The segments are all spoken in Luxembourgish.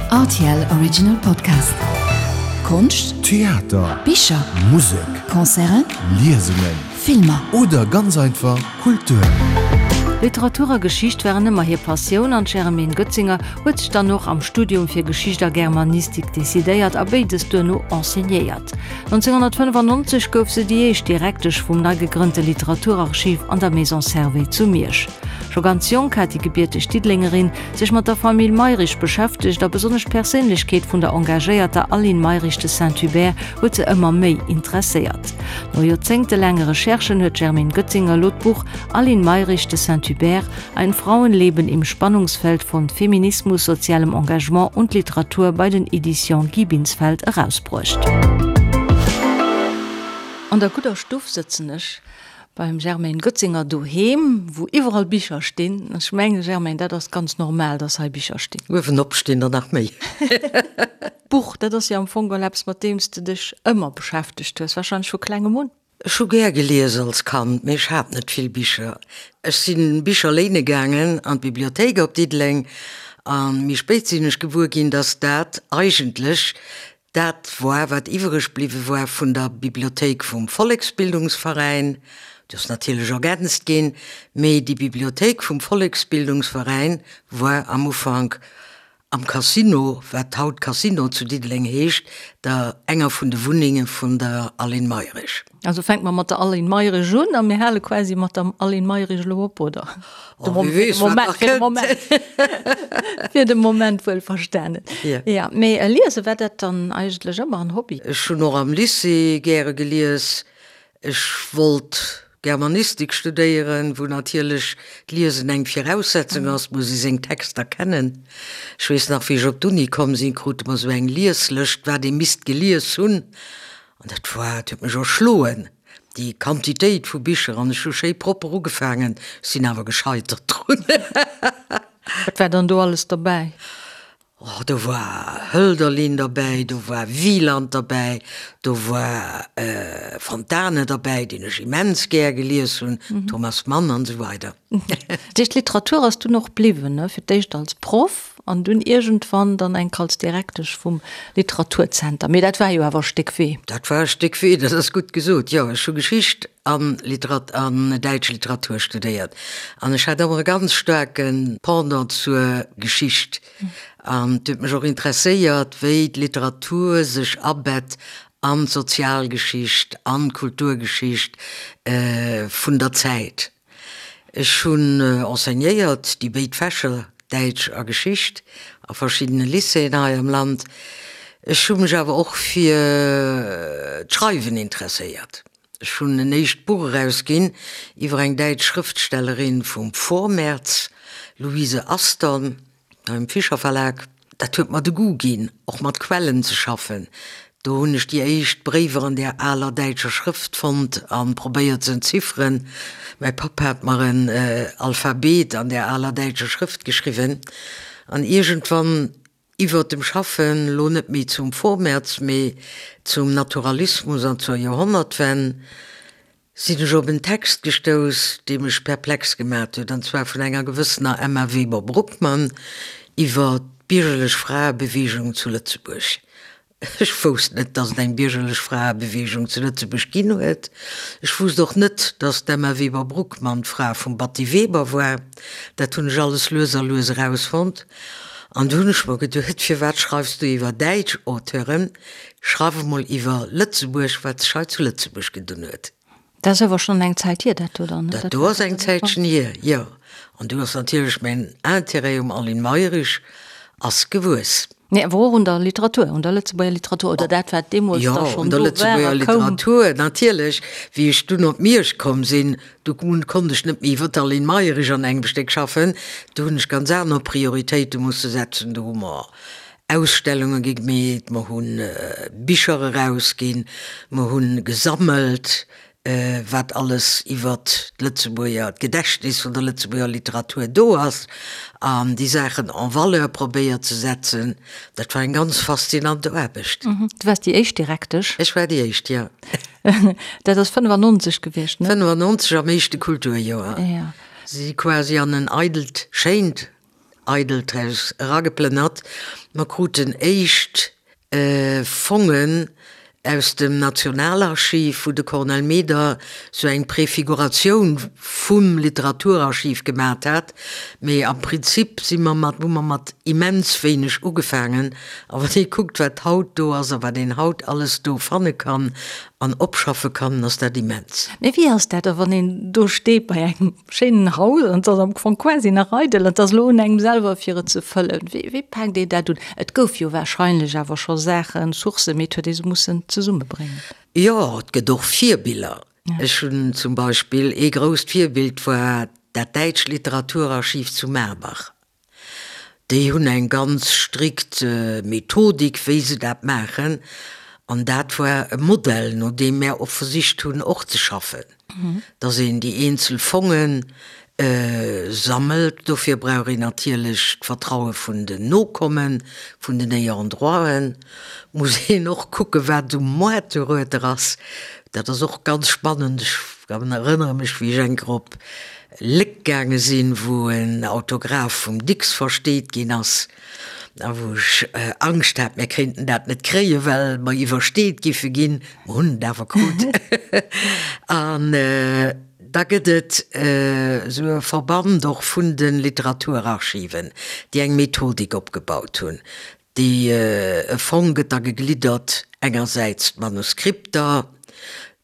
Rtl Original Podcast. Konscht, Theater, Bicher, Musek, Concerten, Liesungen, Filmer. Oder ganz einfach Kultur. Literatur a Geschicht waren ëmmer hir Passioun an d'Germaine Goetzinger huet sech dann och am Studium fir Geschicht a Germanistik decidéiert a béides duerno enseignéiert. 1995 gouf se déi éischt Direktesch vum nei gegrënnte Literaturarchiv an der Maison Servais zu Miersch. Scho ganz jonk hat déi gebierteg Diddelengerin sech mat der Famill Mayrisch beschäftegt a besonnesch d'Perséinlechkeet vun der engagéierter Aline Mayrisch de Saint-Hubert huet se ëmmer méi interesséiert. No joerzéngtelaange Recherchen huet d'Germaine Goetzinger elo d'Buch Aline Mayrisch de Saint-Hubert, Ein Frauenleben im Spannungsfeld von Feminismus, sozialem Engagement und Literatur bei den Editions Guy Binsfeld erausbruecht. An der gudder Stuff sëtzen ech Beim Germaine Goetzinger doheem, wou iwwerall Bicher stinn. Ech mengen, Germaine, dat ass ganz normal, dass hei Bicher stinn. Uewenop stinn der nach méi. D'Buch, dat ass jo am Fong geholl eppes, mat deem s de dech ëmmer beschäftegt hues, warscheinlech vu klengem un. Ech hu gär gelies als Kand, mee ech hat net vill Bicher. Ech si Bicher léine gaangen an d'Bibliothéik op Diddeleng a méi spéit sinn ech gewuer ginn, dass dat eigentlech Dat woar, wat iwwereg bliwwe woar vun der Bibliothéik vum Volleksbildungsveräin. Déi ass natierlech ergänzt ginn, mee déi Bibliothéik vum Volleksbildungsveräin woar am Ufank am Casino, wat haut Casino zu Diddeleng heescht, der enger vun de Wunnenge vun der Aline Mayrisch. Also fänke mer mat der Aline Mayrisch un a mir hale quasi mat der Aline Mayrisch elo op, oder? Oh, wie weess, wat nach kënnt. Fir de Moment wuel verstanen. Ja. Ja, mee liese war dat dann eigentlech ëmmer en Hobby? Ech hunn och am Lycée gäre gelies. Ech wollt Germanistik studéieren, wou natierlech d'Liesen eng Viraussetzung ass, muss ee seng Texter kennen. Ech weess nach, wéi ech op d'Uni komm sinn, krute mer esou eng Lieslëscht, wat ee misst gelies hunn. An dat war, dat huet mech erschloen, déi Quantitéit vu Bicher. An ech hu schéi propper ugefaangen, sinn awer gescheitert drun. Wat war dann do alles derbäi? Oh, do war Hölderlin derbäi, do war Wieland derbäi, do war Fontane derbäi, deen ech immens gär gelies hunn, Thomas Mann an esou weider. Dat heescht, d'Literatur ass dunn och bliwwen, ne? Fir d'éischt als Proff an dunn iergendwann dann enk als Direktesch vum Literaturzenter. Mee dat war jo awer e Stéck Wee. Dat war e Stéck Wee, dat ass gutt gesot, jo. Ech hu Geschicht an Literat an däitsch Literatur studéiert an ech hat ëmmer e ganz staarke Pendant zur Geschicht. An et huet mech och interesséiert, wéi d'Literatur sech abett an d'Sozialgeschicht, an d'Kulturgeschicht vun der Zäit. Ech hunn enseignéiert, déi béid Fächer, Däitsch a Geschicht, a verschiddene Lycéeën hei am Land. Ech hu mech awer och fir d'Schreiwen interesséiert. Ech hunn en éischt Buch erausginn iwwer eng däitsch Schrëftstellerin vum Vormärz, Luise Aston. Beim Fischer Verlag, dat huet mer de Goût ginn, och mat Quellen ze schaffen. Do hunn ech déi éischt Bréiwer an där aler däitscher Schrëft fonnt a probéiert ze entzifferen. Mäi Papp hat mer en Alphabet an där aler däitscher Schrëft geschriwwen. An iergendwann, iwwert dem Schaffen, lo net méi zum Vormärz, mee zum Naturalismus an zur Joerhonnertwenn, sinn ech op en Text gestouss, dee mech perplex gemat huet, an zwar vun enger gewëssener Emma Weber-Bruckmann iwwer d'biergerlech Fraebeweegung zu Lëtzebuerg. Ech wousst net, datt et eng biergerlech Fraebeweegung zu Lëtzebuerg ginn huet. Ech wousst och net, datt d'Emma Weber-Bruckmann d'Fra vum Batty Weber war. Dat hunn ech alles lues a lues erausfonnt. An du hunn ech mer geduet, Firwat schreifs du iwwer däitsch Auteuren? Schreif emol iwwer Lëtzebuerg, wat sech hei zu Lëtzebuerg gedun huet. Dat ass awer schonn eng Zäit hier, dat do dann, ne? Dat do ass eng Zäitchen hier, jo. An du ass natierlech mäin Intérêt um Aline Mayrisch ass gewuess. Nee, awer och un der Literatur, un der Lëtzebuerger Literatur, oder dat, wat deemools da schonn do war a koum. Jo, un der Lëtzebuerger Literatur, natierlech. Wéi ech dunn op Miersch komm sinn, du konnt ech net méi iwwer d'Aline Mayrisch an engem Stéck schaffen. Do hunn ech ganz aner Prioritéite musse setzen. Do hu mer Ausstellunge gi gemeet, mer hu Bicher erausginn, mer hu gesammelt, wat alles iwwert d'Lëtzebuerger, d'Gedächtnis vun der Lëtzebuerger Literatur do ass, an déi Saachen en valeur probéiert ze setzen. Dat war eng ganz faszinant Aarbecht. Du waars déi éischt Direktesch? Ech war déi éischt, jo. Dat ass 95 gewiescht, ne? 95 am éischte Kulturjoer. Jo. Si quasi an en eidelt, schéint. eidelt Haus erageplënnert. Mer kruten éischt Fongen aus dem Nationalarchiv, wou de Cornel Meder sou eng Prefiguratioun vum Literaturarchiv gemat hat. Mee am Prinzip si mer mat, hu mer mat immens wéineg ugefaangen. A wann ee kuckt, wat haut do ass a wat een haut alles do fanne kann an opschaffe kann, ass dat immens. Mee wéi ass dat da, wann een do steet bei engem schéinen Haus an et ass am Fong quasi nach eidel an et ass elo un engem selwer fir et ze fëllen? Wéi, wéi paakt een dat un? Et gouf jo warscheinlech awer scho Saachen, Sourcen, mee et huet ee se mussen zesummebréngen. Jo, et gëtt och Virbiller. Ech hunn zum Beispill, ee grousst Virbild war dat däitscht Literaturarchiv zu Marbach. Déi hunn eng ganz strikt Methodik, wéi se dat maachen. An dat war e Modell, no deem mär och versicht hunn, och ze schaffen, dass een déi eenzel Fonge sammelt. Dofir brauch een natierlech d'Vertraue vun den Nokommen, vun den Ayants-droiten. Muss een och kucken, wat um Moart dorueter ass. Dat ass och ganz spannend. Ech erënnere mech, wéi ech eng Kéier op Léck gaange sinn, wou en Autograph vum Dicks versteet ginn ass a wou ech Angscht hat, mir kéinten dat net kréien, well mer iwwersteet giffe ginn. Mer hunn et awer krut. An da gëtt et esou e Verband och vun de Literaturarchiven, déi eng Methodik opgebaut hunn. Déi e Fong gëtt da gegliddert, engersäits d'Manuskripter,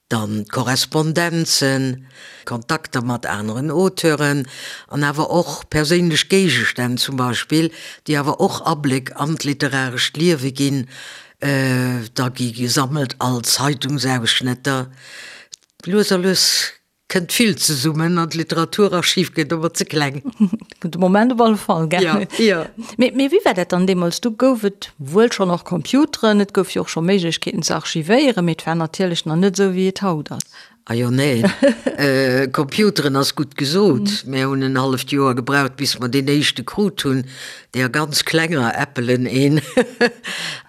Dann d'Korrespondenzen, Kontakter mat aneren Auteuren an awer och perséinlech Géigestänn zum Beispill, déi awer och Abléck an d'literarescht Liewe ginn. Da gi gesammelt all Zeitungsausschnëtter. Lues a lues kënnt vill zesummen an d'Literaturarchiv gëtt ëmmer ze kleng. De Moment op alle Fall, gell? Ja, ja. Mee, mee wéi war dat dann deemools? Du gouf et wuel schonn och Computeren, et gouf jo och scho Méiglechkeeten ze archivéieren, mee et war natierlech nach net esou, wéi et haut ass. Ah jo, neen. Computeren ass gutt gesot. Mär hunn en halleft Joer gebraucht, bis mer deen éischte krut hunn, deer ganz klenger Appelen een.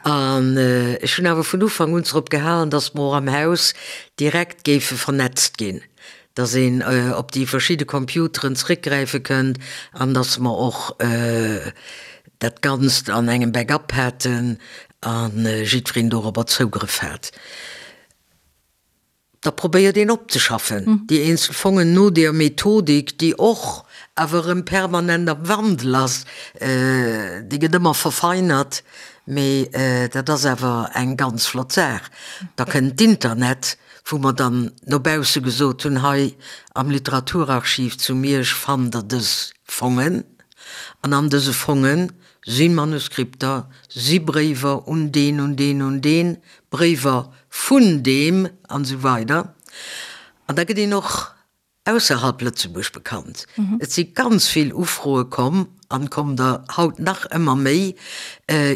An ech hunn awer vun Ufank un drop gehalen, datt mer och am Haus direkt géife vernetzt ginn. dass een op déi verschidde Computeren zréckgräife kënnt an dass mer och dat Ganzt an engem Backup haten a jiddwereen dorobber Zougrëff hat. Da probéiert een opzeschaffen, déi eenzel Fongen no deer Methodik, déi och awer erëm permanent am Wandel ass, déi gëtt ëmmer verfeinert, mee dat ass awer eng ganz flott Saach. Da kënnt d'Internet, wou mer dann no bausse gesot hunn, hei am Literaturarchiv zu Miersch fannt der dës Fongen, an an dëse Fonge si Manuskripter, si Bréiwer un deen, un deen, un deen, Bréiwer vun deem, an esou weider. An da gëtt een och ausserhalb Lëtzebuerg bekannt. Et si ganz vill Ufroe komm, an kommen der haut nach ëmmer méi,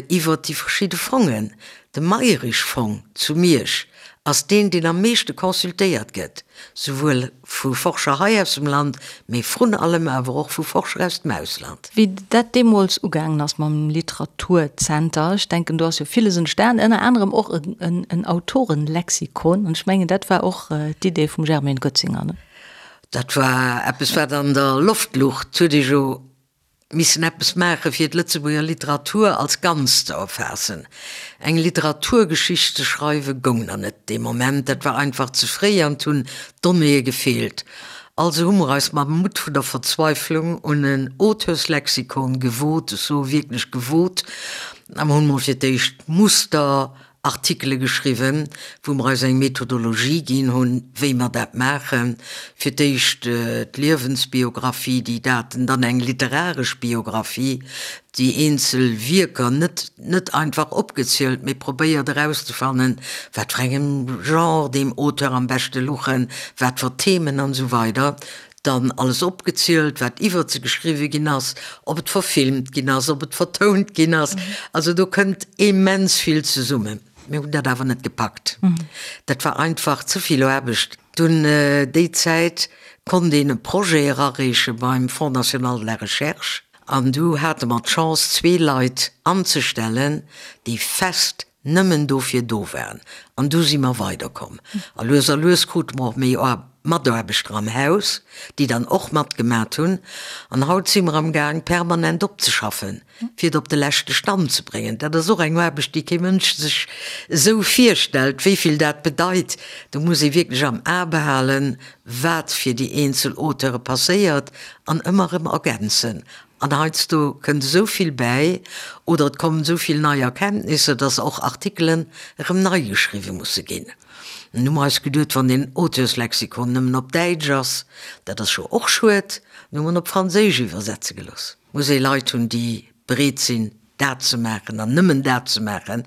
iwwert déi verschidde Fongen. De Mayrisch-Fong zu Miersch ass deen, deen am meeschte consultéiert gëtt, souwuel vu Forscher hei aus dem Land, mee vrun allem awer och vu Forscher aus dem Ausland. Wéi dat deemools ugaangen ass mam Literaturzenter, ech denken, do ass jo villes entstan, ënner anerem och en Autorenlexikon, an ech mengen, dat war och d'Idee vum Germaine Goetzinger, ne? Dat war eppes, wat an der Loft luch. Et huet ee jo missen eppes maachen, fir d'Lëtzebuerger Literatur als Ganzt ze erfaassen. Eng Literaturgeschicht ze schreiwe goung nach net dee Moment, dat war einfach ze fréi an et hunn d'Donnéeë gefeelt. Also hu mer eis mam Mutt vun der Verzweiflung un en Auteurslexikon gewot, ech soe wierklech gewot, a mer hunn mol fir d'éischt Muster Artikele geschriwwen, wou mer eis eng Methodologie ginn hunn, wéi mer dat maachen. Fir d'éischt d'Liewensbiographie, déi Daten, dann eng literaresch Biographie, déi eenzel Wierker net net einfach opgezielt, mee probéiert erauszefannen, wat fir engem Genre deem Auteur am beschte luchen, wat fir Themen an esou weider. Dann alles opgezielt, wat iwwert se geschriwwe ginn ass, ob et verfilmt ginn ass, ob et vertount ginn ass. Also do kënnt immens vill zesummen. Mir hunn dat awer net gepackt. Dat war einfach ze vill Aarbecht. Dunn déi Zäit konnt een e Projet erareeche beim Fonds national de la recherche an du hate mer d'Chance zwee Leit anzestellen, déi fest nëmmen dofir do waren. An du si mer weiderkomm. A lues a lues krute mer och méi. Mataarbechter am Haus, déi dann och matgemat hunn. An haut si mer am Gaang, permanent opzeschaffen, fir et op de leschte Stand ze bréngen. Dat ass och eng Aarbecht, déi kee Mënsch sech esou virstellt, wéi vill dat bedeit. Do muss ee wierklech am A behalen, wat fir déi eenzel Auteure passéiert an ëmmer erëm ergänzen. An heiansdo kënnt esou vill bäi oder et kommen esou vill nei Erkenntnisser, dass och Artikelen erëm nei geschriwwe musse ginn. Nun hu mer eis geduet, wann deen Auteurslexikon nëmmen op Däitsch ass, dat ass jo och schued, dann hu mer en op Franséisch iwwersetze gelooss. Muss ee Leit hunn, déi bereet sinn, dat ze maachen an nëmmen dat ze maachen.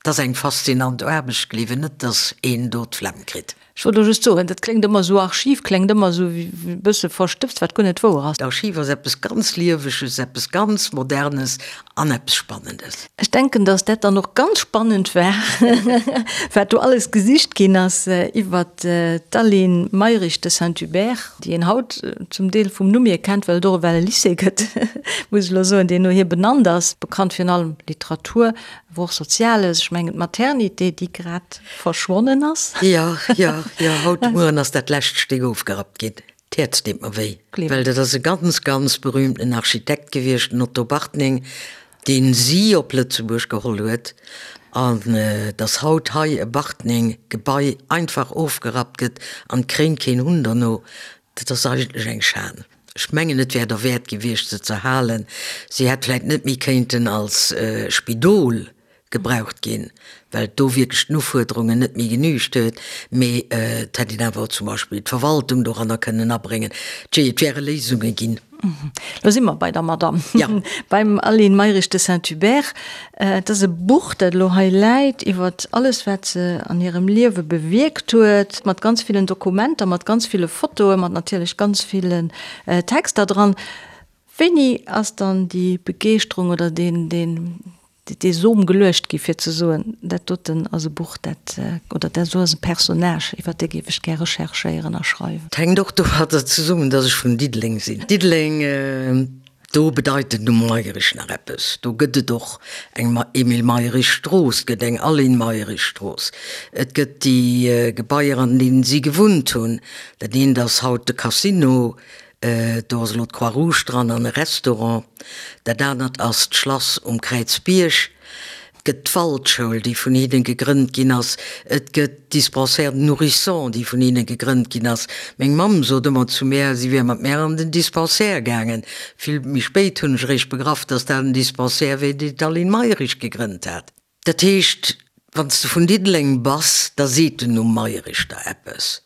Et ass eng faszinant Aarbecht, gleewen net, dass een do d'Flemm kritt. Ech wollt elo just soen, dat kléngt ëmmer esou, Archiv kléngt ëmmer esou e bësse verstëbst, wat guer net wouer ass. D'Archiv ass eppes ganz Lieweges, eppes ganz Modernes an eppes Spannendes. Ech denken, dass dat dann och ganz spannend war, wat do alles gesicht ginn ass iwwert d'Aline Mayrisch de Saint-Hubert, déi een haut zum Deel vum Numm hier kennt, well et och ewell e Lycée gëtt, muss ech elo soen, deen no hir benannt ass, bekannt virun allem Literatur, Awer och Soziales, ech mengen d'Maternité, déi grad verschwonnen ass. Jo, jo, jo, haut de Mueren ass dat lescht Stéck ofgerappt ginn. D'Häerz deet mer wéi, well dat ass e ganz, ganz berühmten Architekt gewiescht, den Otto Bartning, deen si op Lëtzebuerg geholl huet. An dass haut hei e Bartning-Gebai einfach ofgerappt gëtt an et kréint keen Hunn derno, Dat ass eigentlech eng Schan. Ech mengen, et wär derwäert gewiescht, se z'erhalen. Si hätt vläicht net méi kéinten als Spidol gebraucht ginn, well do wierklech den Ufuerderungen net méi genügt huet, mee et hätt een awer zum Beispill d'Verwaltung doranner kënnen abréngen. Tjee, et wäre Léisunge ginn. Lo si mer bei der Madamm, beim Aline Mayrisch de Saint-Hubert. Et ass e Buch, dat elo hei läit, iwwer alles, wat se an hirem Liewe bewierkt huet, mat ganz villen Dokumenter, mat ganz ville Fotoen, mat natierlech ganz villen Texter dran. Wéini ass dann déi Begeeschterung oder deen, deen, dee Som geluecht gi fir ze soen, dat doten ass e Buch, dat, oder dat do ass e Personnage, iwwer dee géif ech gär recherchéieren a schreiwen? Et hänkt och domadder zesummen, dass ech vun Diddeleng sinn. Diddeleng, do bedeit den Numm Mayrisch nach eppes. Do gëtt et och eng Emile Mayrisch Strooss, et gëtt eng Aline Mayrisch Strooss, et gëtt déi Gebaier, an deenen si gewunnt hunn. Dat eent ass haut de Casino, Do ass elo d'Croix Rouge dran an e Restaurant. Dat anert ass d'Schlass um Kräizbierg. Et gëtt d'Waldschoul, déi vun hinnen gegrënnt ginn ass. Et gëtt d'Dispensaire de nourrissons, déi vun hinne gegrënnt ginn ass. Meng Mamm sot ëmmer zu mär, si wier mat mär an den Dispensaire gaangen. Vill méi spéit hunn ech eréischt begraff, dass dat en Dispensaire wier, deen d'Aline Mayrisch gegrënnt hat. Dat heescht, wann s de vun Diddeleng bass, da seet den Numm Mayrisch der eppes.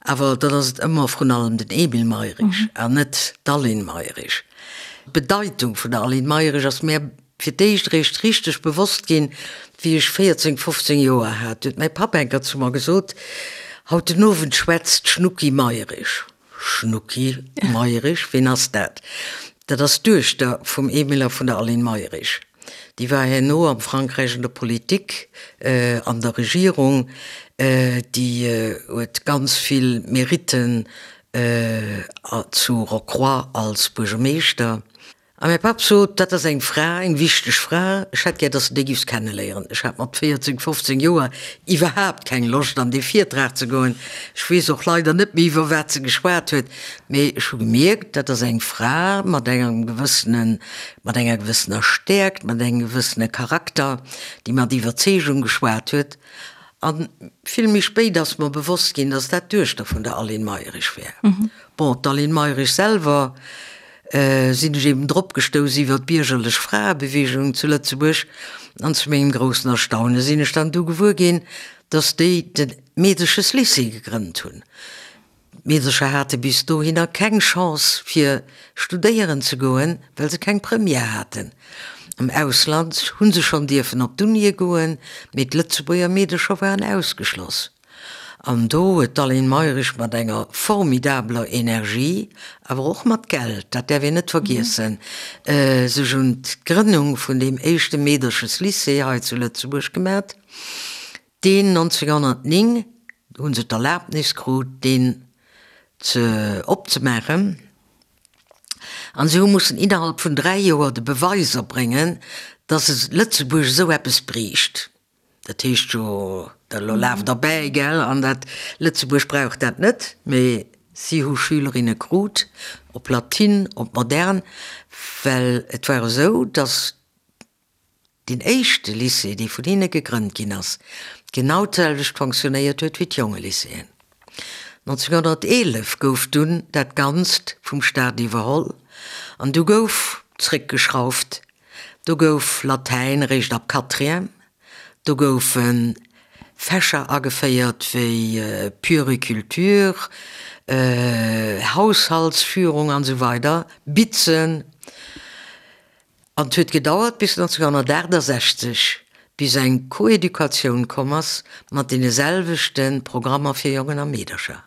Awer dann ass et ëmmer vrun allem den Emile Mayrisch an net d'Aline Mayrisch. D'Bedeitung vun der Aline Mayrisch ass mär fir d'éischt eréischt richteg bewosst ginn, wéi ech 14, 15 Joer hat. Du huet mäi Papp eng Kéier zu mer gesot, Haut den Owend schwätzt d'Schnucki Mayrisch. Schnucki Mayrisch, ween ass dat? Dat ass d'Duechter vum Emile a vun der Aline Mayrisch. Déi war herno am Frankräich an der Politik, an der Regierung. Déi huet ganz vill Meritten zu Rocroi als Buergermeeschter. A mäi Papp sot, Dat ass eng Fra, eng wichteg Fra, ech hätt gär, dass de déi giffs kenneléieren. Ech hat mat 14, 15 Joer iwwerhaapt keng Loscht, an dee Virtrag ze goen. Ech weess och leider net méi, iwwer wat se geschwat huet, mee ech hu gemierkt, dat ass eng Fra mat engem gewëssenen, mat enger gewëssener Stäerkt, mat engem gewëssene Charakter, déi mat Iwwerzeegung geschwat huet. A vill méi spéit ass mer bewosst ginn, dass dat d'Duechter vun der Aline Mayrisch wär. Bon, d'Aline Mayrisch selwer sinn ech eben drop gestouss iwwer d'biergerlech Fraebeweegung zu Lëtzebuerg an zu mengem groussen Erstaune sinn ech dann du gewuer ginn, dass déi de Meedescheslycée gegrënnt hunn. D'Meedercher hate bis dohinner keng Chance fir studéieren ze goen, well se keng Première haten. Am Ausland hu se schonn dierfen op d'Unie goen, mee d'Lëtzebuerger Meedercher waren ausgeschloss. An do huet d'Aline Mayrisch mat enger formidabeler Energie, awer och mat Geld, dat däerf een net vergiessen, sech un d'Grënnung vun deem éischte Meedercheslycée hei zu Lëtzebuerg gemat, deen 1909, hu se d'Erlaabnis krut, deen ze opzemaachen. An se hu mussen innerhalb vun 3 Joer de Beweis erbréngen, datt Lëtzebuerg esou eppes bréicht. Dat heescht jo. Elo laaft der bäi, gell, an dat Lëtzebuerg brauch dat net, mee si hu Schülerinne krut, op Latin, op Modern, well et war esou, datt deen éischte Lycée, dee vun hinne gegrënnt ginn ass, genau d'selwecht fonctionnéiert huet wéi d'Jongelycéeën. 1911 gouf dunn dat Ganzt vum Staat iwwerholl an du gouf zréckgeschrauft, do gouf Latäin eréischt ab Quatrième, Do goufe Fächer ageféiert wéi Puericulture, Haushaltsführung an esou weider, Bitzen. An et huet gedauert bis 1968, bis eng Koeducatioun komm ass mat deene selwechte Programmer fir Jongen a Meedercher.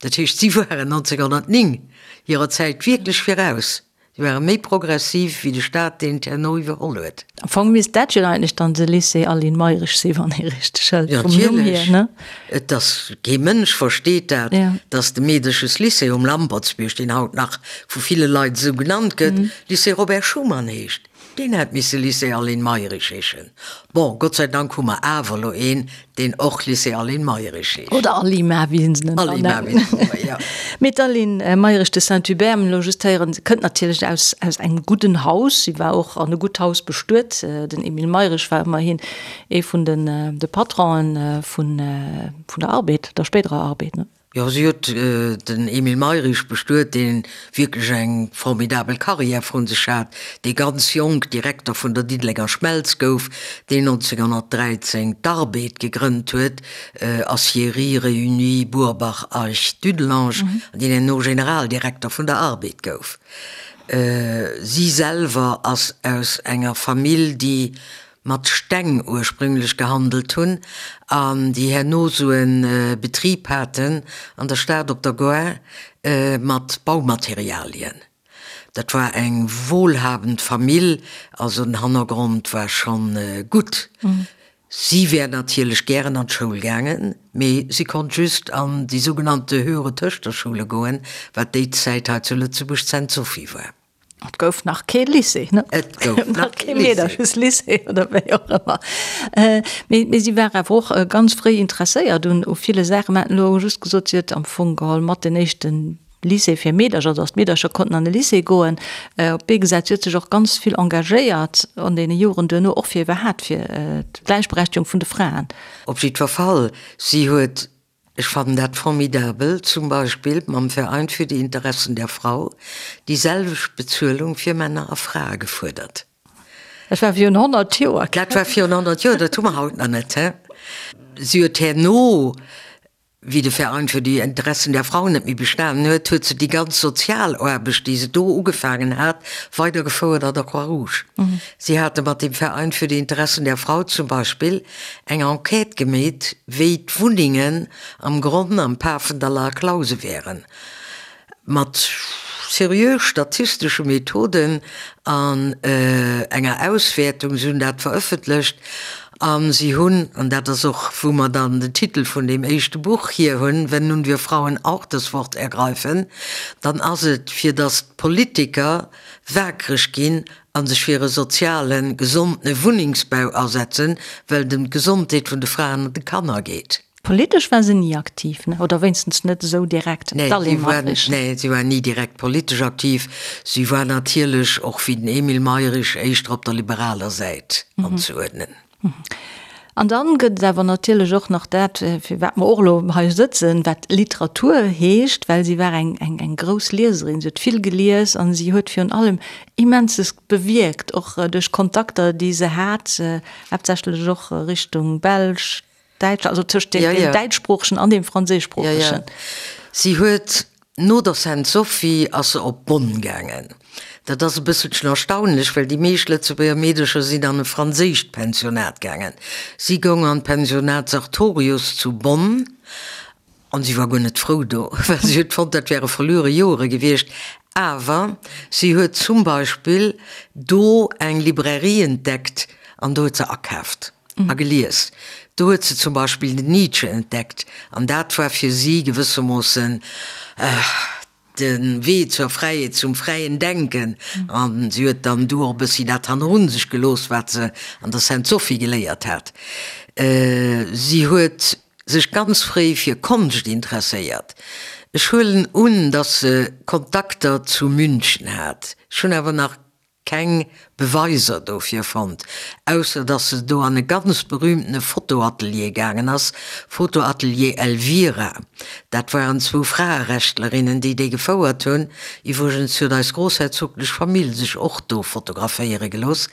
Dat heescht, si waren 1909 hirer Zäit wierklech viraus. Si ware méi progressiv wéi de Staat, deen et herno iwwerholl huet. Am Fong misst dat jo eigentlech dann de Lycée Aline Mayrisch sinn, wann ee richteg hëlt, vum Numm hier, ne? Et ass, kee Mënsch versteet dat, datt de Meedeches-Lycée um Lampertsbierg, deen haut nach vu ville Leit esou genannt gëtt, Lycée Robert Schuman heescht. Deen hätt misse Lycée Aline Mayrisch heeschen. Bon, Gott sei Dank hu mer awer elo een, deen och Lycée Aline Mayrisch heescht. Oder Alima, wéi se en Alima, wéi se nennen, jo. Mee d'Aline Mayrisch de Saint-Hubert, mir elo just héieren, se kënnt natierlech aus, aus engem gudden Haus. Si war och an e gutt Haus bestuet. Den Emile Mayrisch war ëmmerhin ee vun den, de Patronen vun, vun der Arbed, der spéiderer Arbed, ne? Jo, si huet den Emile Mayrisch bestuet, dee wierklech eng formidabel Karriär vrun sech hat, dee ganz jonk Direkter vun der Diddelenger Schmelz gouf, deen 1913 d'Arbed gegrënnt huet, Aciéries Réunies Burbach Eich Dudelange, an deen herno Generaldirekter vun der Arbed gouf. Si selwer ass aus enger Famill, déi mat Steng ursprünglech gehandelt hunn an déi herno sou e Betrib haten an der Stad op der Gare mat Baumaterialien. Dat war eng wohlhabend Famill, also den Hannergrond war schonn gutt. Si wär natierlech gären an d'Schoul gaangen, mee si konnt just an déi sougenannte Höhere Töchterschule goen, wat déi Zäit hei zu Lëtzebuerg d'Sainte-Sophie war. Et gouf nach kee Lycée, ne? Et gouf nach kee Lycée. Lycée oder wéi och ëmmer. Mee, mee si war awer och ganz fréi interesséiert un u ville Saachen. Mer haten elo just gesot, si huet am Fong geholl mat den éischte Lycée fir Meedercher, also datt d'Meedercher konnten an de Lycée goen, op d'Bee gesat. Si huet sech och ganz vill engagéiert an deene Joren duerno, och fir iwwerhaapt fir d'Gläichberechtigung vun de Fraen. Op jiddwer Fall, si huet Ech fannen dat formidabel, zum Beispill mam Verein für die Interessen der Frau déi selwecht Bezuelung fir Männer a Frae gefuerdert. Dat war virun 100 Joer. Dat war virun 100 Joer, dat hu mer haut nach net, he? Si huet herno, wéi de Verein für die Interessen der Frau net méi bestanen huet, huet se déi ganz Sozialaarbecht, déi se do ugefaangen hat, weidergefouert an der Croix-Rouge. Si hate mat dem Verein für die Interessen der Frau zum Beispill eng Enquête gemeet, wéi d'Wunnengen am Gronn am Pafendaller Klause wären, mat seriö statistesche Methoden an enger Auswäertung. Si hunn dat verëffentlecht a si hunn, an dat ass och, wou mer dann den Titel vun deem éischte Buch hier hunn, Wenn nun wir Frauen auch das Wort ergreifen, dann ass et, fir datt d'Politiker wakereg ginn a sech fir e sozialen, gesondene Wunnengsbau asetzen, well et ëm d'Gesondheet vun de Fraen an de Kanner geet. Politesch war se ni aktiv, ne? Oder wéinstens net esou direkt, d'Aline Mayrisch. Nee, si war ni direkt politesch aktiv. Si war natierlech, och wéi den Emile Mayrisch, éischter op der liberaler Säit anzeuerdnen. An dann gëtt et awer natierlech och nach dat, fir wat mer och elo hei sëtzen, wat Literatur heescht, well si war eng, eng, eng grouss Lieserin. Si huet vill gelies an si huet virun allem Immenses bewierkt, och duerch Kontakter, déi se hat, haaptsächlech och Richtung Belsch, Däitsch, also tëscht deem däitschsproochegen an deem franséischsproochegen. Si huet no der Sainte-Sophie ass se op Bonn gaangen. Dat ass e bësselchen erstaunlech, well déi meescht Lëtzebuerger Meedercher sinn an e franséischt Pensionat gaangen. Si goung an d'Pensionat Sartorius zu Bonn an si war guer net frou do, well si huet fonnt, dat wäre verluere Joere gewiescht. Awer si huet zum Beispill do eng Librairie entdeckt an do huet se akaaft. A gelies. Do huet se zum Beispill den Nietzsche entdeckt, an dat war fir si gewëssermoossen. De Wee zur Fräiheet, zum fräien Denken. A si huet dann du och e bëssi dat hannerun sech gelooss, wat se an der Sainte-Sophie geléiert hat. Si huet sech ganz fréi fir Konscht interesséiert. Ech huelen un, datt se Kontakter zu München hat. Ech hunn awer nach keng Beweiser dofir fonnt, ausser dass se do an e ganz berühmtene Fotoatelier gaangen ass, Fotoatelier Elvira. Dat waren zwou Fraerechtlerinnen, déi dee gefouert hunn. Iwwregens huet eis groussherzoglech Famill sech och do fotograféiere gelooss.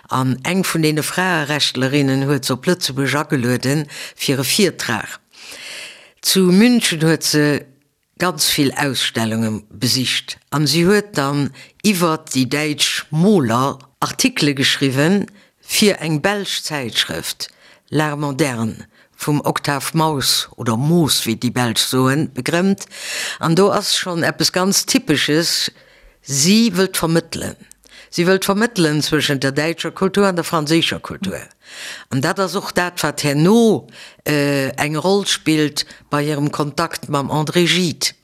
An eng vun deene Fraerechtlerinnen huet se op Lëtzebuerg agelueden fir e Virtrag. Zu München huet se ganz vill Ausstellunge besicht an si huet dann iwwert déi däitsch Moler Artikele geschriwwen fir eng belsch Zäitschrëft, L'Art Moderne, vum Octave Maus, oder Moos wéi déi Belsch soen, begrëmmt. An do ass schonn eppes ganz Typesches, Si wëllt vermëttelen. Si wëllt vermëttelen zwëschent der däitscher Kultur an der franséischer Kultur. An dat ass och dat, wat herno eng Roll spillt bei hirem Kontakt mam André Gide.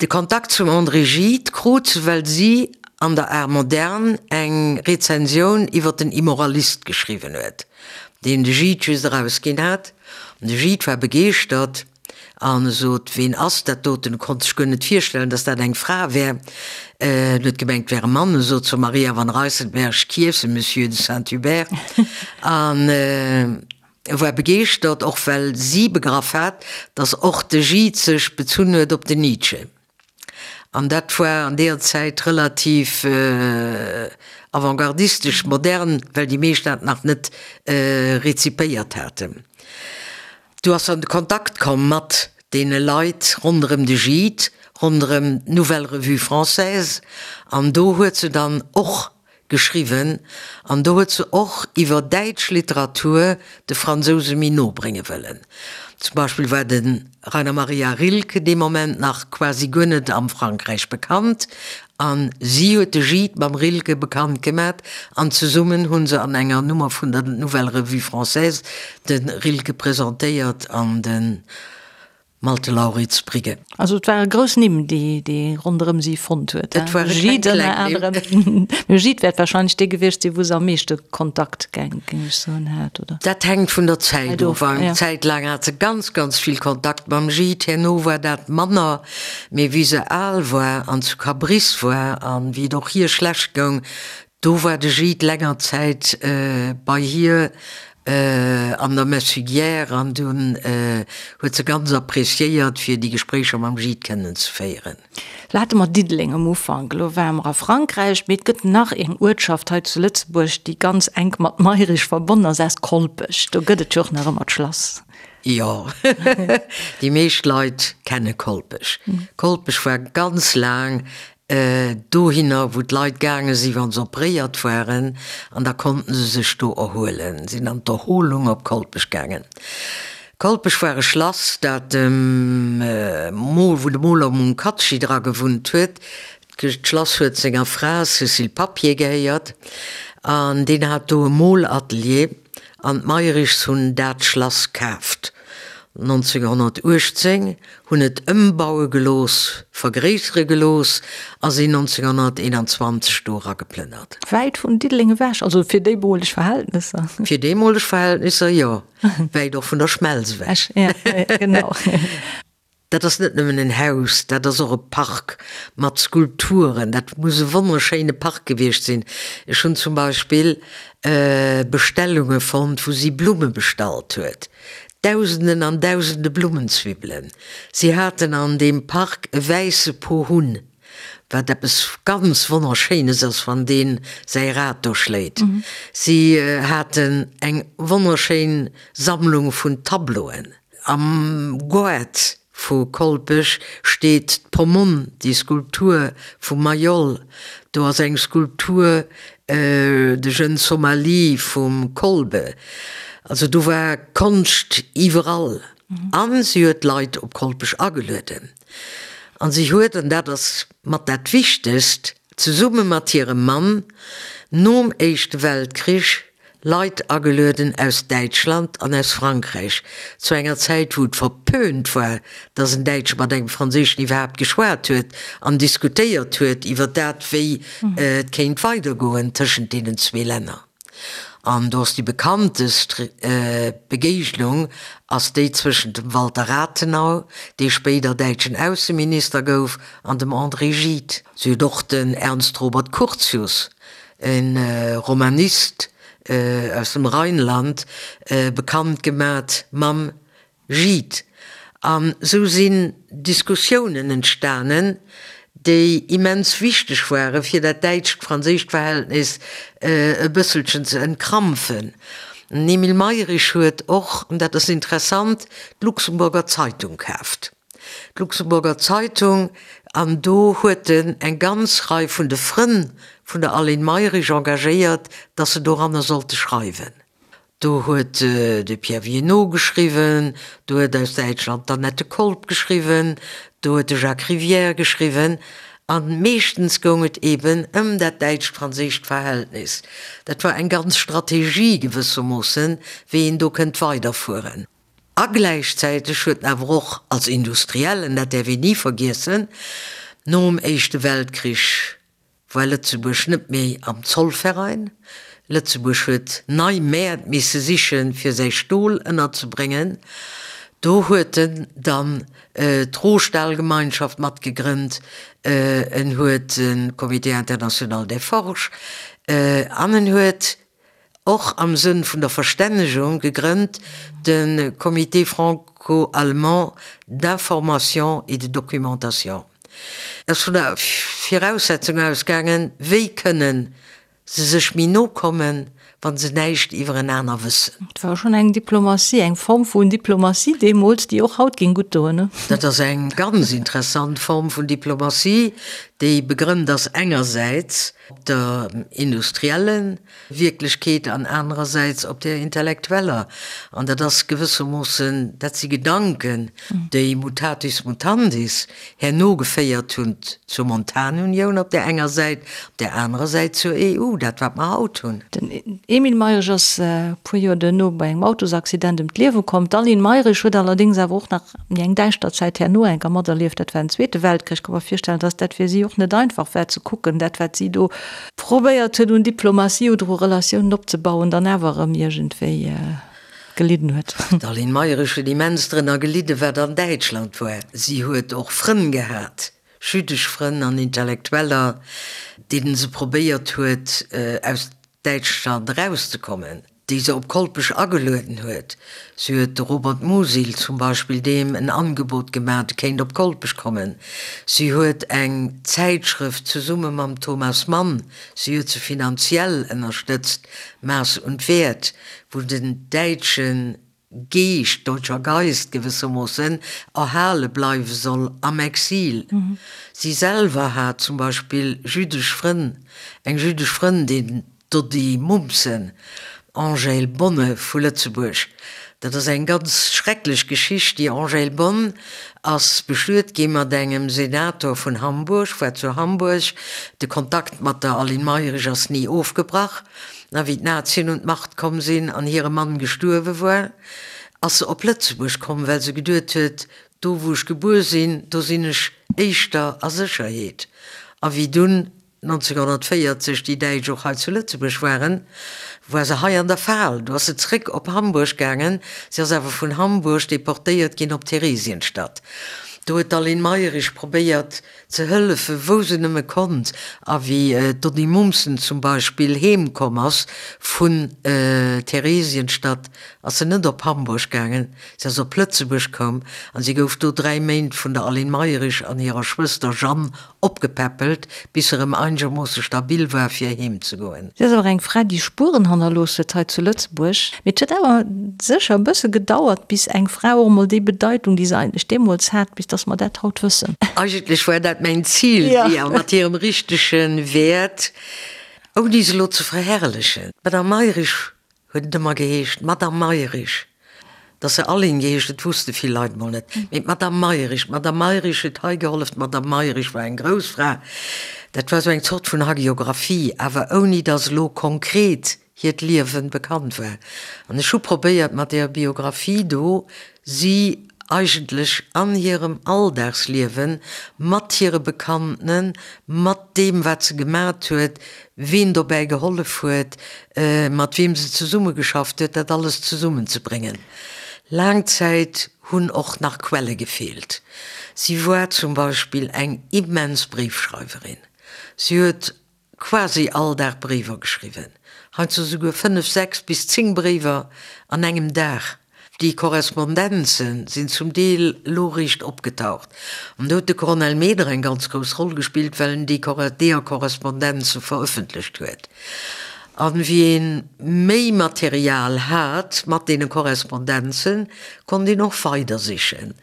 De Kontakt zum André Gide krut se, well si an der Art Moderne eng Rezensioun iwwer den Immoralist geschriwwen huet, deen de Gide just erausginn hat. An de Gide war begeeschtert. An e sot, Ween ass dat doten? E konnt sech guer net virstellen, datt dat eng Fra wär. En huet gemengt, et wär e Mann. E sot zur Maria van Rijsselberghe, Qui est ce monsieur de Saint-Hubert? An e war begeeschtert, och well si begraff hat, datt och de Gide sech bezunn huet op den Nietzsche. An dat war an deeër Zäit relativ avantgardistesch, modern, well déi meescht dat nach net rezipéiert haten. Du ass an de Kontakt komm mat deene Leit ronderëm de Gide, ronderëm d'Nouvelle Revue Française, an do huet se dann och geschriwwen an do huet se och iwwer däitsch Literatur de Fransouse méi no brénge wëllen. Zum Beispill war de Rainer Maria Rilke dee Moment nach quasi guer net am Frankräich bekannt an si huet de Gide mam Rilke bekannt gemat an zesummen hu se an enger Nummer vun der Nouvelle Revue Française de Rilke presentéiert an de Malte Lauritz Brigge. Also et ware grouss Nimm, déi déi ronderëm si fonnt huet. Et ware keng kleng Nimm. Mee Gide wäert wahrscheinlech dee gewiescht sinn, wou se am meeschte Kontakt, géing ech soen, hat, oder? Dat hänkt vun der Zäit of. Eng Zäit laang hat se ganz, ganz vill Kontakt mam Gide, herno war dat manner. Mee wéi se al war an zu Cabris war an wéi et och hir schlecht goung, do war de Gide länger Zäit bei hir an der Messugière an dunn huet se ganz appréciéiert fir déi Gespréicher mam Gide kënnen ze féieren. Lo hate mer Diddeleng am Ufank, elo ware mer a Frankräich, mee et gëtt nach eng Uertschaft hei zu Lëtzebuerg, déi ganz enk mat Mayrisch verbonnen ass, ass Kolpech. Do gëtt et jo och nach ëmmer d'Schlass. Jo, déi meescht Leit kenne Kolpech. Kolpech war ganz laang dohinner, wou d'Leit gaange si wa se operéiert waren, an da konnten se sech do erhuelen, sinn an d'Erholung op Kolpech gaangen. Kolpech war e Schlass, dat dem Mol, wou de Moler Munkacsi dra gewunnt huet. D'Schlass huet senger Fra Cécile Papier gehéiert an deen hat do e Molatelier. An d'Mayrischs hunn dat Schlass kaaft 1918, hunn et ëmbaue gelooss, vergréissere gelooss a sinn 1921 do erageplënnert. Wäit vun Diddeleng ewech, also fir déimoleg Verhältnesser. Fir deemoleg Verhältnisser, jo. Wäit och vun der Schmelz ewech. Ja, genau. Dat ass net nëmmen en Haus, dat ass och e Park mat Skulpturen. Dat muss e wonnerschéine Park gewiescht sinn. Ech hunn zum Beispill Bestellunge fonnt, wou si Blumme bestallt huet. Dausenden an Dausende Blummenzwibbelen. Si haten an deem Park e wäisse Pohunn, wat eppes ganz Wonnerschéines ass, wann dee säi Rad do schléit. Si haten eng wonnerschéin Sammlung vun Tableauen. Am Goart vu Kolpech steet d'Pomone, déi Skulptur vum Mayol. Do ass eng Skulptur, de Jeune Somalie vum Kolbe. Also do war Konscht iwwerall. A si huet d'Leit op Kolpech agelueden. A si huet, an dat ass mat dat Wichtegst, zesumme mat hirem Mann nom Éischte Weltkrich. Leit agelueden aus Däitschland an aus Frankräich, zu enger Zäit wou et verpönt war, datt en Däitsche mat engem Franséischen iwwerhaapt geschwat huet an diskutéiert huet iwwer dat, wéi et kéint weidergoen tëschent deenen zwee Länner. An do ass déi bekanntest Begéignung ass déi zwëschent dem Walter Rathenau, dee spéider däitschen Ausseminister gouf, an dem André Gide. Si huet och den Ernst Robert Curtius, e Romanist aus dem Rheinland, bekannt gemat mam Gide. An esou sinn Diskussiounen entstanen, déi immens wichteg ware fir dat däitscht-franséischt Verhältnis e bësselchen ze entkrampfen. Den Emile Mayrisch huet och, an dat ass interessant, d'Luxemburger Zeitung kaaft. D'Luxemburger Zeitung, an do huet en eng ganz Rei vun de Frënn vun der Aline Mayrisch engagéiert, datt se doranner sollte schreiwen. Do huet de Pierre Viénot geschriwwen, do huet aus Däitschland d'Annette Kolb geschriwwen, do huet de Jacques Rivière geschriwwen. A meeschtens goung et eben ëm dat däitscht-franséischt Verhältnis. Dat war eng ganz Strategie gewëssermoossen, wéi een do kënnt weiderfueren. A gläichzäiteg huet en awer och als Industriellen, dat däerf een ni vergiessen, nom Éischte Weltkrich war Lëtzebuerg net méi am Zollverein. Lëtzebuerg huet nei Mäert misse sichen, fir säi Stol ënnerzebréngen. Do huet en dann d'Rohstahlgemeinschaft matgegrënnt, en huet de Comité international des forges an en huet och am Sënn vun der Verstännegung gegrënnt de Comité franco-allemand d'information et de documentation. Ass vun der Viraussetzung ausgaangen, wéi kënnen se sech méi no kommen, wa se näischt iwwerenaner wëssen. Et war schonn eng Diplomatie, eng Form vun Diplomatie deemools, déi och haut géing gutt doen, ne? Dat ass eng ganz interessant Form vun Diplomatie, déi begrënnt ass engersäits op der industriellen Wierklechkeet an anerersäits op där intellektueller. An dat ass gewëssermoossen, dat si Gedanken, déi mutatis mutandis herno geféiert hunn zur Montanunioun op där enger Säit, op där anerer Säit zur EU, dat wat mer haut hunn. Den Emile Mayrisch ass e puer Joer duerno bei engem Autosaccident ëm d'Liewe komm. D'Aline Mayrisch huet allerdéngs awer och nach méi eng däischter Zäit herno enker materlieft, dat war den Zweete Weltkrich. Ka mer virstellen, datt dat fir si och net einfach war ze kucken, dat wat si do probéiert huet un Diplomatie oder u Relatiounen opzebauen, dann awer erëm iergendwéi gelidden huet. D'Aline Mayrisch huet immens drënner gelidden, wat an Däitschland war. Si huet och Frënn gehat, jüddesch Frënn an Intellektueller, deenen se probéiert huet, aus Däitschland erauszekommen, déi se op Kolpech agelueden huet. Si huet de Robert Musil zum Beispill deem en Angebot gemaach, e kéint op Kolpech kommen. Si huet eng Zäitschrëft zesumme mam Thomas Mann, si huet se finanziell ënnerstëtzt, Maß und Wert, wou den däitsche Geescht, deutscher Geist gewëssermoossen, erhale bleiwe soll am Exil. Si selwer hat zum Beispill jüddesch Frënn, eng jüddesch Frëndin, d'Doddy Mumsen, Angèle Bonne vu Lëtzebuerg. Dat ass eng ganz schrecklech Geschicht. Déi Angèle Bonne ass bestuet gi mat engem Senator vun Hamburg, war zu Hamburg. De Kontakt mat der Aline Mayrisch ass ni ofgebrach. A wéi d'Nazien un d'Macht komm sinn an hire Mann gestuerwe war, ass se op Lëtzebuerg komm, well se geduet huet, Do wou ech gebuer sinn, do sinn ech éischter a Sécherheet. A wéi dunn 1940 déi Däitsch och hei zu Lëtzebuerg waren, war se hei an der Fal. Du ass se zréck op Hamburg gaangen. Si ass awer vun Hamburg deportéiert ginn op Theresienstadt. Do huet d'Aline Mayrisch probéiert, ze hëllefen, wou se nëmme konnt, a wéi d'Donny Mumsen zum Beispill heem komm ass vun Theresienstadt, ass se net op Hamburg gaangen, se ass op Lëtzebuerg koum an si gouf do 3 Méint vun der Aline Mayrisch an hirer Schwëster Jeanne opgepäppelt, bis se erëm einegermoosse stabil war fir heem ze goen. Si ass awer eng Fra, déi Spueren hannerlooss huet hei zu Lëtzebuerg. Mee et huet awer sécher e bësse gedauert, bis eng Fra och emol déi Bedeitung, déi se eigentlech deemools hat, bis dass mer dat haut wëssen. Eigentlech war dat mäin Zil, si mat hirem richtege Wäert, ouni se elo ze verherrlechen. D'Madame Mayrisch huet et ëmmer geheescht, d'Madame Mayrisch. Dass se Aline geheescht huet, wusste vill Leit mol net. Mee d'Madame Mayrisch, d'Madame Mayrisch huet hei gehollef, d'Madame Mayrisch war eng grouss Fra. Dat war esou eng Zort vun Hagiographie, awer ouni dass elo konkret. hiert Liewen bekannt war. An ech hu probéiert mat deeër Biographie do si eigentlech an hirem Alldagsliewen, mat hire Bekanntenen, mat deem wat se gemat huet, ween dobäi gehollef huet, mat weem se zesummegeschafft huet, dat alles zesummenzebréngen. Laang Zäit hunn och nach Quelle gefeelt. Si war zum Beispill eng immens Bréifschreiwerin. Si huet quasi all Dag Bréiwer geschriwwen, heiansdo souguer 5, 6 bis 10 Bréiwer an engem Dag. Déi Korrespondenze sinn zum Deel elo eréischt opgetaucht. An do huet de Cornel Meder eng ganz grouss Roll gespillt, well en déi deeër Korrespondenze verëffentlecht huet. An wéi ee méi Material hat mat deene Korrespondenzen, konnt een och weider sichen.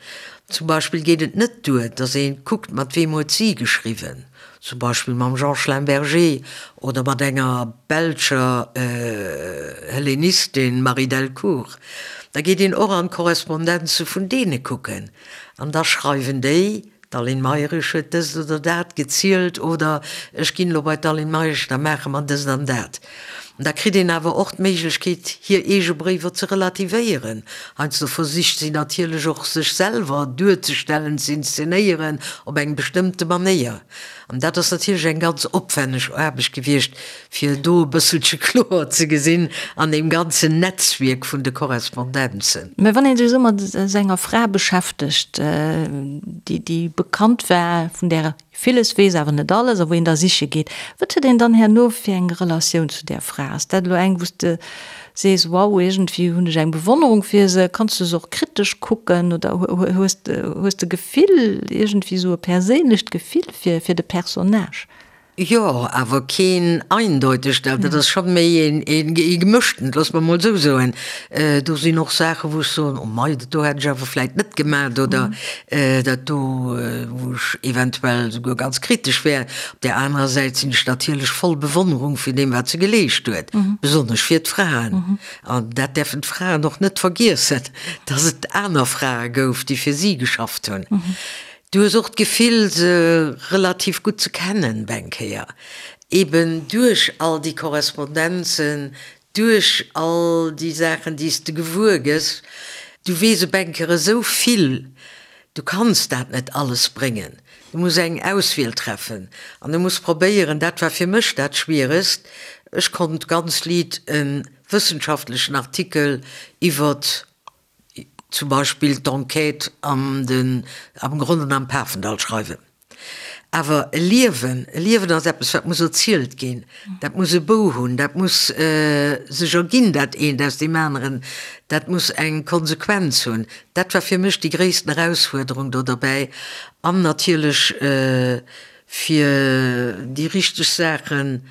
Zum Beispill geet et net duer, datt ee kuckt, mat weem huet si geschriwwen. Zum Beispill mam Jean Schlemberger oder mat enger belscher Hellenistin, Marie Delcourt. Da geet een och an d'Korrespondenze vun deene kucken an da schreiwen déi, d'Aline Mayrisch huet dëst oder dat gezielt oder ech ginn elo bei d'Aline Mayrisch, da maache mer dëst an dat. Da kritt een awer och d'Méiglechkeet, hir eege Bréiwer ze relativéieren. Heiansdo versicht si natierlech och, sech selwer duerzestellen, z'inszenéieren op eng bestëmmte Manéier. An dat ass natierlech eng ganz opwänneg Aarbecht gewiescht, fir do e bësselche kloer ze gesinn an deem ganzen Netzwierk vun de Korrespondenzen. Mä wann ee sech esou mat esou enger Fra beschäftegt, déi, déi bekannt war, vun där Villes weess awer net alles, a wou een da siche geet. Wat huet een dann herno fir eng Relatioun zu där Fra? Ass dat elo eng, wou s de sees, wow, iergendwéi hunn ech eng Bewonnerung fir se? Kanns du se och kritesch kucken oder hues hues de Gefill, iergendwéi esou e perséinlecht Gefill fir fir de Personnage? Jo, awer keen eindeutegt, dat ass scho méi een ee gemëschtent, loosse mer emol esou soen. Do sinn och Saachen, wou ech soen, oh mei, dat do hätt ech awer vläit net gemat oder dat do, wou ech eventuell souguer ganz kritesch wär. Op där anerer Säit sinn ech natierlech voll Bewonnerung vun deem, wat se geleescht huet, besonnesch fir d'Fraen. An dat däerfen d'Fraen och net vergiessen, dass et aner Frae gouf, déi fir si geschafft hunn. Du hues och d'Gefill se relativ gutt ze kennen beng Kéier, eben duerch all déi Korrespondenzen, duerch all déi Saachen déi s de gewuer gëss. Du weess op eng Kéier esou vill, du kanns dat net alles bréngen, du muss eng Auswiel treffen an du muss probéieren, dat war fir mech dat Schwieregst, ech konnt ganz liit e wëssenschaftlechen Artikel iwwert zum Beispill d'Enquête an den, am Gronn an am Pafendall schreiwen. Awer e Liewen, e Liewen ass eppes, wat muss erzielt ginn, dat muss e Bou hunn, dat muss sech erginn, dat eent aus deem aneren, dat muss eng Konsequenz hunn. Dat war fir mech déi gréissten Erausfuerderung do derbäi. An natierlech fir déi richteg Saachen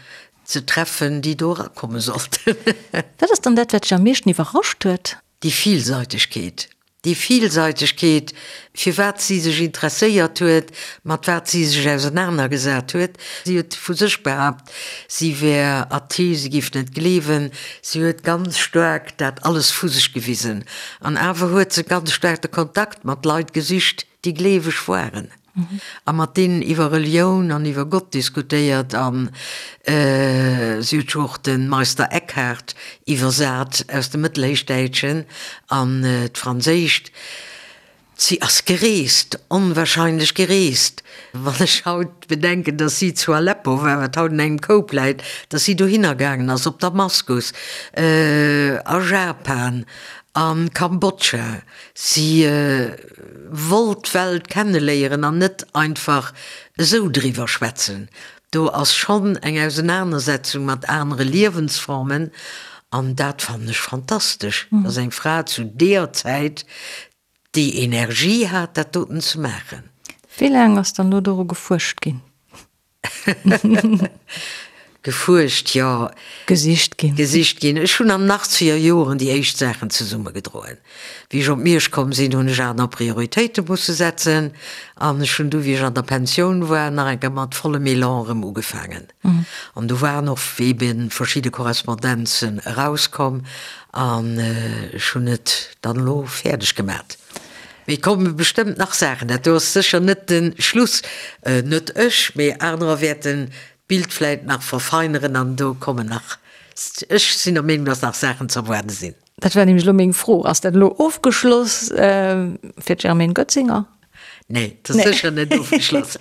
ze treffen, déi do erakomme sollten. Wat ass dann dat, wat dech am meeschten iwwerrascht huet? Déi Villseitegkeet, déi Villseitegkeet, fir wat si sech interesséiert huet, mat wat si sech ausenanergesat huet. Si huet vu sech behaapt, si wär athee, si géif net gleewen. Si huet ganz staark dat alles vu sech gewisen. An awer huet se ganz staark de Kontakt mat Leit gesicht, déi gleeweg waren. A mat deenen iwwer Relioun an iwwer Gott diskutéiert an si huet jo och de Meister Eckhart iwwersat aus dem Mëttelhéichdäitschen an d'Franséischt. Si ass gereest, onwahrscheinlech gereest. Wann ech haut bedenken, datt si zu Aleppo war, wat haut an engem Koup läit, datt si dohinner gaangen ass, op Damaskus, a Japan, a Kambodscha, si wollt d'Welt kenneléieren an net einfach esou driwwer schwätzen. Do ass schonn eng Ausenanersetzung mat anere Liewensformen an dat fannen ech fantastesch, dass eng Fra zu deeër Zäit déi Energie hat, dat doten ze maachen. Wéi laang ass dann do doru gefuerscht ginn? Gefuerscht, jo. Gesicht ginn. Gesicht ginn. Ech hunn an den achtzeger Joren déi éischt Saachen zesummegedroen. Wéi ech op Miersch komm sinn, hunn ech aner Prioritéite musse setzen. An ech hunn du, wéi ech an der Pensioun war, nach eng Kéier mat vollem Elan erëm ugefaangen. An do waren och ebe verschidde Korrespondenzen erauskomm. An ech hunn et dann elo fäerdeg gemat. Mee et komme bestëmmt nach Saachen. Dat do ass sécher net de Schluss. Net ech, mee anerer wäerten d'Bild vläit nach verfeineren an do kommen nach. Ech sinn der Meenung, dass nach Saachen ze erwaarde sinn. Dat war nämlech elo meng Fro. Ass dat elo ofgeschloss fir d'Germaine Goetzinger? Nee, dat ass sécher net ofgeschloss.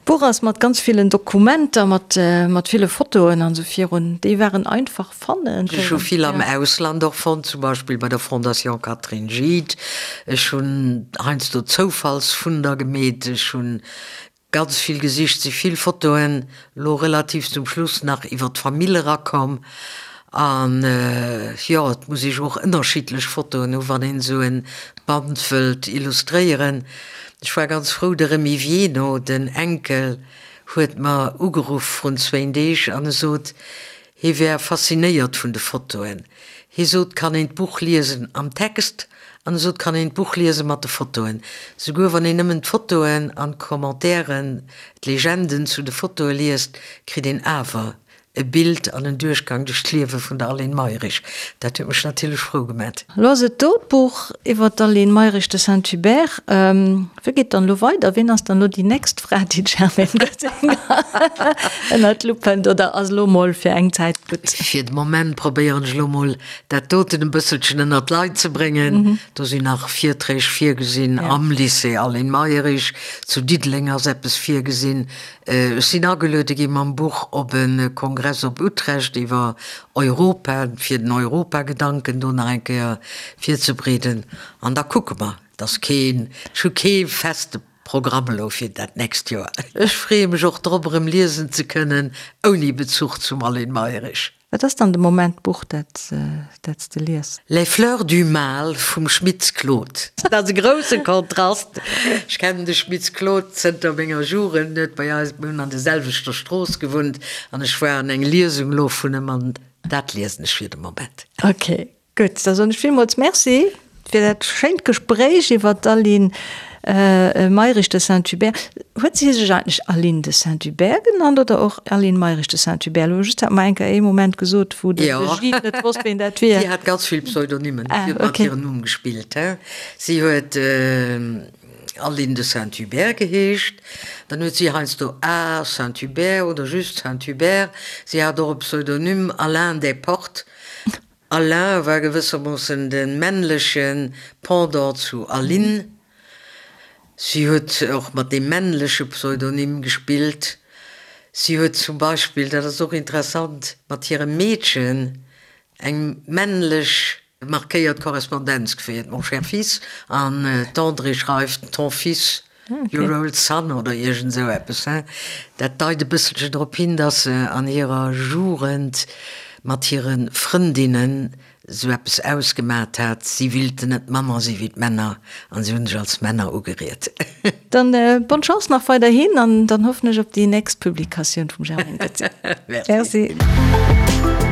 D'Buch ass mat ganz villen Dokumenter, mat, mat ville Fotoen an esou virun. Déi waren einfach fannen. Ech hu vill am Ausland och fonnt, zum Beispill bei der Fondation Catherine Gide. Ech hunn heiansdo Zoufallsfunder gemeet. Ech hunn Ganz vill gesicht, si vill Fotoen lo relativ zum Schluss nach iwwer d'Famill erakomm. An jo, et muss ee jo och ënnerschiddlech Fotoen hu wann een esou e Band wëllt illustréieren. Ech war ganz frou, de Remy Vieno, den Enkel, huet mer ugeruff vrun zwéin Deeg an e sot, Hie wär faszinéiert vun de Fotoen. Hie sot, kann een d'Buch liesen am Text an e sot, kann een d'Buch liese mat de Fotoen. Souguer wann een nëmmen d'Fotoen an d'Commentairen, d'Legenden zu de Fotoe liest, kritt een awer e Bild an en Duerchgang duerch d'Liewe vun der Aline Mayrisch. Dat huet mech natierlech frou gemat. Elo ass et do, d'Buch iwwer d'Aline Mayrisch de Saint-Hubert. Wéi geet dann elo weider? Wien ass dann elo déi nächst Fra, déi d'Germaine Goetzinger ënnert d'Lupp hënt? Oder ass elo mol fir eng Zäit gutt? Fir de Moment probéieren ech elo mol, dat doten e bësselchen ënnert d'Leit ze bréngen. Do sinn nach Virträg virgesinn am Lycée Aline Mayrisch. Zu Diddeleng ass eppes virgesinn. Ech sinn ageluede gi mam Buch op e Kongress op Utrecht iwwer Europa, fir den Europagedanken do nach eng Kéier virzebreeden. An da kucke mer. Et ass keen, ech hu kee feste Programm elo fir dat nächst Joer. Ech freeë mech och drop, erëm liesen ze kënnen, ouni Bezuch zum Aline Mayrisch. Wat ass dann de Moment d'Buch, dat s de lies? Les fleurs du mal vum Schmitz Claude. Dat ass e grousse Kontrast. Ech kennen de Schmitz Claude zënter menger Jugend, en huet bei eis, mir hunn an der selwechter Strooss gewunnt an ech war an eng Liesung elo vun em an dat liesen ech fir de Moment. Ok, Gutt, da soen ech villmools Merci fir dat schéint Gespréich iwwer d'Aline Mayrisch de Saint-Hubert. Huet si sech eigentlech Aline de Saint-Hubert genannt oder och Aline Mayrisch de Saint-Hubert? Elo just hat mer eng Kéier ee Moment gesot, wou de Gilles net wosst, ween dat wier. Si hat ganz vill Pseudonymen, si huet mat hirem Numm gespillt. Si huet Aline de Saint-Hubert geheescht, dann huet si heiansdo A. Saint-Hubert oder just Saint-Hubert. Si hat och e Pseudonym Alain Desportes. Alain war gewëssermoossen de männleche Pendant zu Aline. Si huet och mat deem männleche Pseudonym gespillt. Si huet zum Beispill, dat ass och interessant, mat hirem Meedchen eng männlech markéiert Korrespondenz geféiert, Mon cher fils, an d'Andrée schreift, Ton fils. Your old son oder iergend esou eppes, he? Dat deit e bësselchen drop hin, dass se an hirer Jugend mat hire Frëndinnen esou eppes ausgemat hat, si willten net manner si wéi d'Männer an si hunn sech als Männer ugeriet. Dann bonne Chance nach weiderhin an dann hoffen ech op déi nächst Publikatioun vum Germaine Goetze. Merci. Merci.